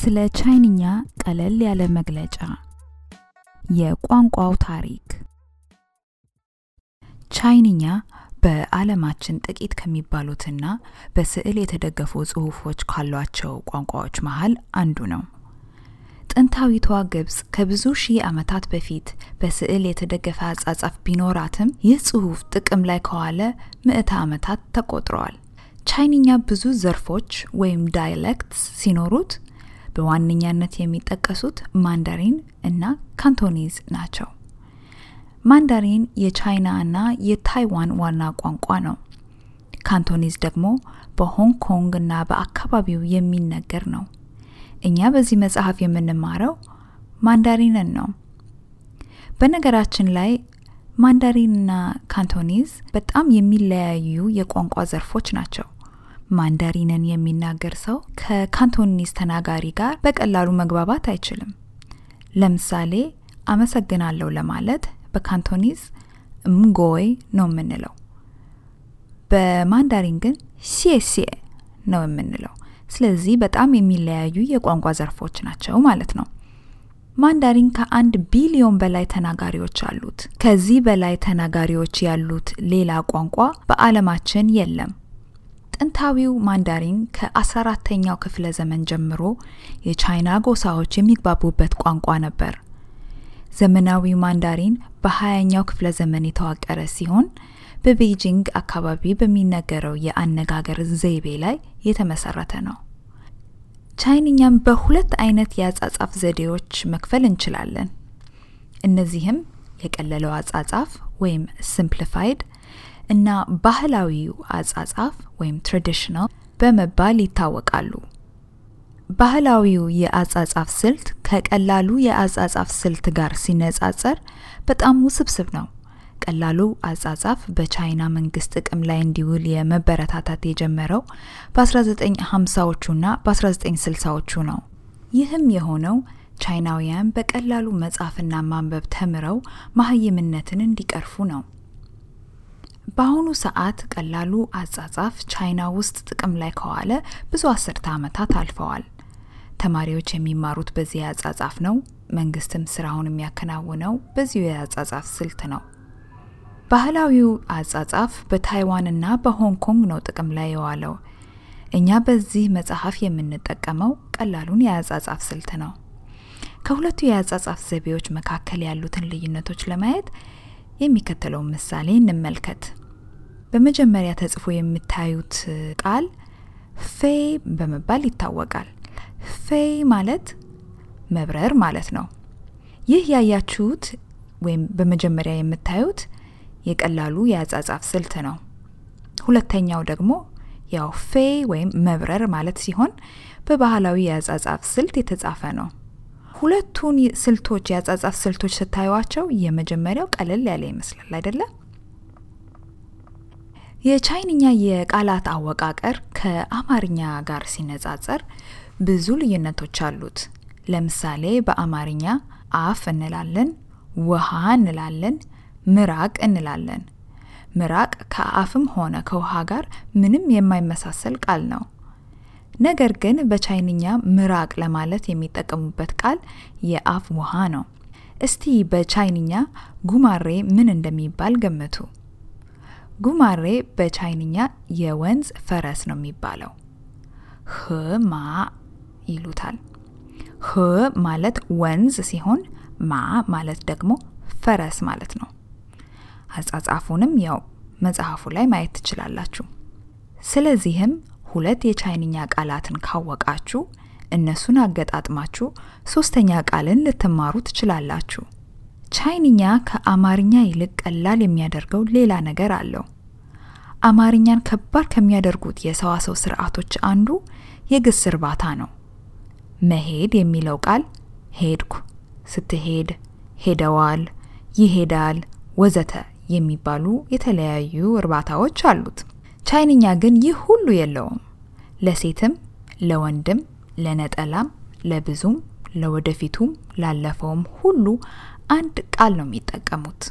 ስለ ቻይንኛ ቀለል ያለ መግለጫ የቋንቋው ታሪክ ቻይንኛ በዓለማችን ጥቂት ከሚባሉትና በስዕል የተደገፉ ጽሑፎች ካሏቸው ቋንቋዎች መሃል አንዱ ነው። ጥንታዊቷ ግብጽ ከብዙ ሺህ ዓመታት በፊት በስዕል የተደገፈ አጻጻፍ ቢኖራትም ይህ ጽሑፍ ጥቅም ላይ ከዋለ ምዕተ ዓመታት ተቆጥረዋል። ቻይንኛ ብዙ ዘርፎች ወይም ዳያሌክትስ ሲኖሩት በዋነኛነት የሚጠቀሱት ማንዳሪን እና ካንቶኒዝ ናቸው። ማንዳሪን የቻይና እና የታይዋን ዋና ቋንቋ ነው። ካንቶኒዝ ደግሞ በሆንግ ኮንግ እና በአካባቢው የሚነገር ነው። እኛ በዚህ መጽሐፍ የምንማረው ማንዳሪንን ነው። በነገራችን ላይ ማንዳሪንና ካንቶኒዝ በጣም የሚለያዩ የቋንቋ ዘርፎች ናቸው። ማንዳሪንን የሚናገር ሰው ከካንቶኒዝ ተናጋሪ ጋር በቀላሉ መግባባት አይችልም። ለምሳሌ አመሰግናለሁ ለማለት በካንቶኒዝ ምጎይ ነው የምንለው። በማንዳሪን ግን xiexie ነው የምንለው። ስለዚህ በጣም የሚለያዩ የቋንቋ ዘርፎች ናቸው ማለት ነው። ማንዳሪን ከ1 ቢሊዮን በላይ ተናጋሪዎች አሉት። ከዚህ በላይ ተናጋሪዎች ያሉት ሌላ ቋንቋ በዓለማችን የለም። ጥንታዊው ማንዳሪን ከ14ኛው ክፍለ ዘመን ጀምሮ የቻይና ጎሳዎች የሚግባቡበት ቋንቋ ነበር። ዘመናዊው ማንዳሪን በ20ኛው ክፍለ ዘመን የተዋቀረ ሲሆን በቤጂንግ አካባቢ በሚነገረው የአነጋገር ዘይቤ ላይ የተመሰረተ ነው። ቻይንኛም በሁለት አይነት የአጻጻፍ ዘዴዎች መክፈል እንችላለን። እነዚህም የቀለለው አጻጻፍ ወይም simplified እና ባህላዊው አጻጻፍ ወይም traditional በመባል ይታወቃሉ። ባህላዊው የአጻጻፍ ስልት ከቀላሉ የአጻጻፍ ስልት ጋር ሲነጻጸር በጣም ውስብስብ ነው። ቀላሉ አጻጻፍ በቻይና መንግስት ጥቅም ላይ እንዲውል የመበረታታት የጀመረው በ1950ዎቹና በ1960ዎቹ ነው። ይህም የሆነው ቻይናውያን በቀላሉ መጻፍና ማንበብ ተምረው ማህይምነትን እንዲቀርፉ ነው። በአሁኑ ሰዓት ቀላሉ አጻጻፍ ቻይና ውስጥ ጥቅም ላይ ከዋለ ብዙ አስርተ ዓመታት አልፈዋል። ተማሪዎች የሚማሩት በዚህ አጻጻፍ ነው። መንግስትም ስራውን የሚያከናውነው በዚህ የአጻጻፍ ስልት ነው። ባህላዊው አጻጻፍ በታይዋንና በሆንግ ኮንግ ነው ጥቅም ላይ የዋለው። እኛ በዚህ መጽሐፍ የምንጠቀመው ቀላሉን የአጻጻፍ ስልት ነው። ከሁለቱ የአጻጻፍ ዘዴዎች መካከል ያሉትን ልዩነቶች ለማየት የሚከተለው ምሳሌ እንመልከት። በመጀመሪያ ተጽፎ የምታዩት ቃል ፌይ በመባል ይታወቃል። ፌይ ማለት መብረር ማለት ነው። ይህ ያያችሁት ወይም በመጀመሪያ የምታዩት የቀላሉ የአጻጻፍ ስልት ነው። ሁለተኛው ደግሞ ያው ፌይ ወይም መብረር ማለት ሲሆን በባህላዊ የአጻጻፍ ስልት የተጻፈ ነው። ሁለቱን ስልቶች የአጻጻፍ ስልቶች ስታዩዋቸው የመጀመሪያው ቀለል ያለ ይመስላል አይደለ? የቻይንኛ የቃላት አወቃቀር ከአማርኛ ጋር ሲነጻጸር ብዙ ልዩነቶች አሉት። ለምሳሌ በአማርኛ አፍ እንላለን፣ ውሃ እንላለን፣ ምራቅ እንላለን። ምራቅ ከአፍም ሆነ ከውሃ ጋር ምንም የማይመሳሰል ቃል ነው። ነገር ግን በቻይንኛ ምራቅ ለማለት የሚጠቀሙበት ቃል የአፍ ውሃ ነው። እስቲ በቻይንኛ ጉማሬ ምን እንደሚባል ገምቱ። ጉማሬ በቻይንኛ የወንዝ ፈረስ ነው የሚባለው። ማ ይሉታል። ማለት ወንዝ ሲሆን ማ ማለት ደግሞ ፈረስ ማለት ነው። አጻጻፉንም ያው መጽሐፉ ላይ ማየት ትችላላችሁ። ስለዚህም ሁለት የቻይንኛ ቃላትን ካወቃችሁ እነሱን አገጣጥማችሁ ሶስተኛ ቃልን ልትማሩ ትችላላችሁ። ቻይንኛ ከአማርኛ ይልቅ ቀላል የሚያደርገው ሌላ ነገር አለው። አማርኛን ከባድ ከሚያደርጉት የሰዋሰው ስርዓቶች አንዱ የግስ እርባታ ነው። መሄድ የሚለው ቃል ሄድኩ፣ ስትሄድ፣ ሄደዋል፣ ይሄዳል ወዘተ የሚባሉ የተለያዩ እርባታዎች አሉት። ቻይንኛ ግን ይህ ሁሉ የለውም። ለሴትም፣ ለወንድም፣ ለነጠላም፣ ለብዙም፣ ለወደፊቱም፣ ላለፈውም ሁሉ አንድ ቃል ነው የሚጠቀሙት።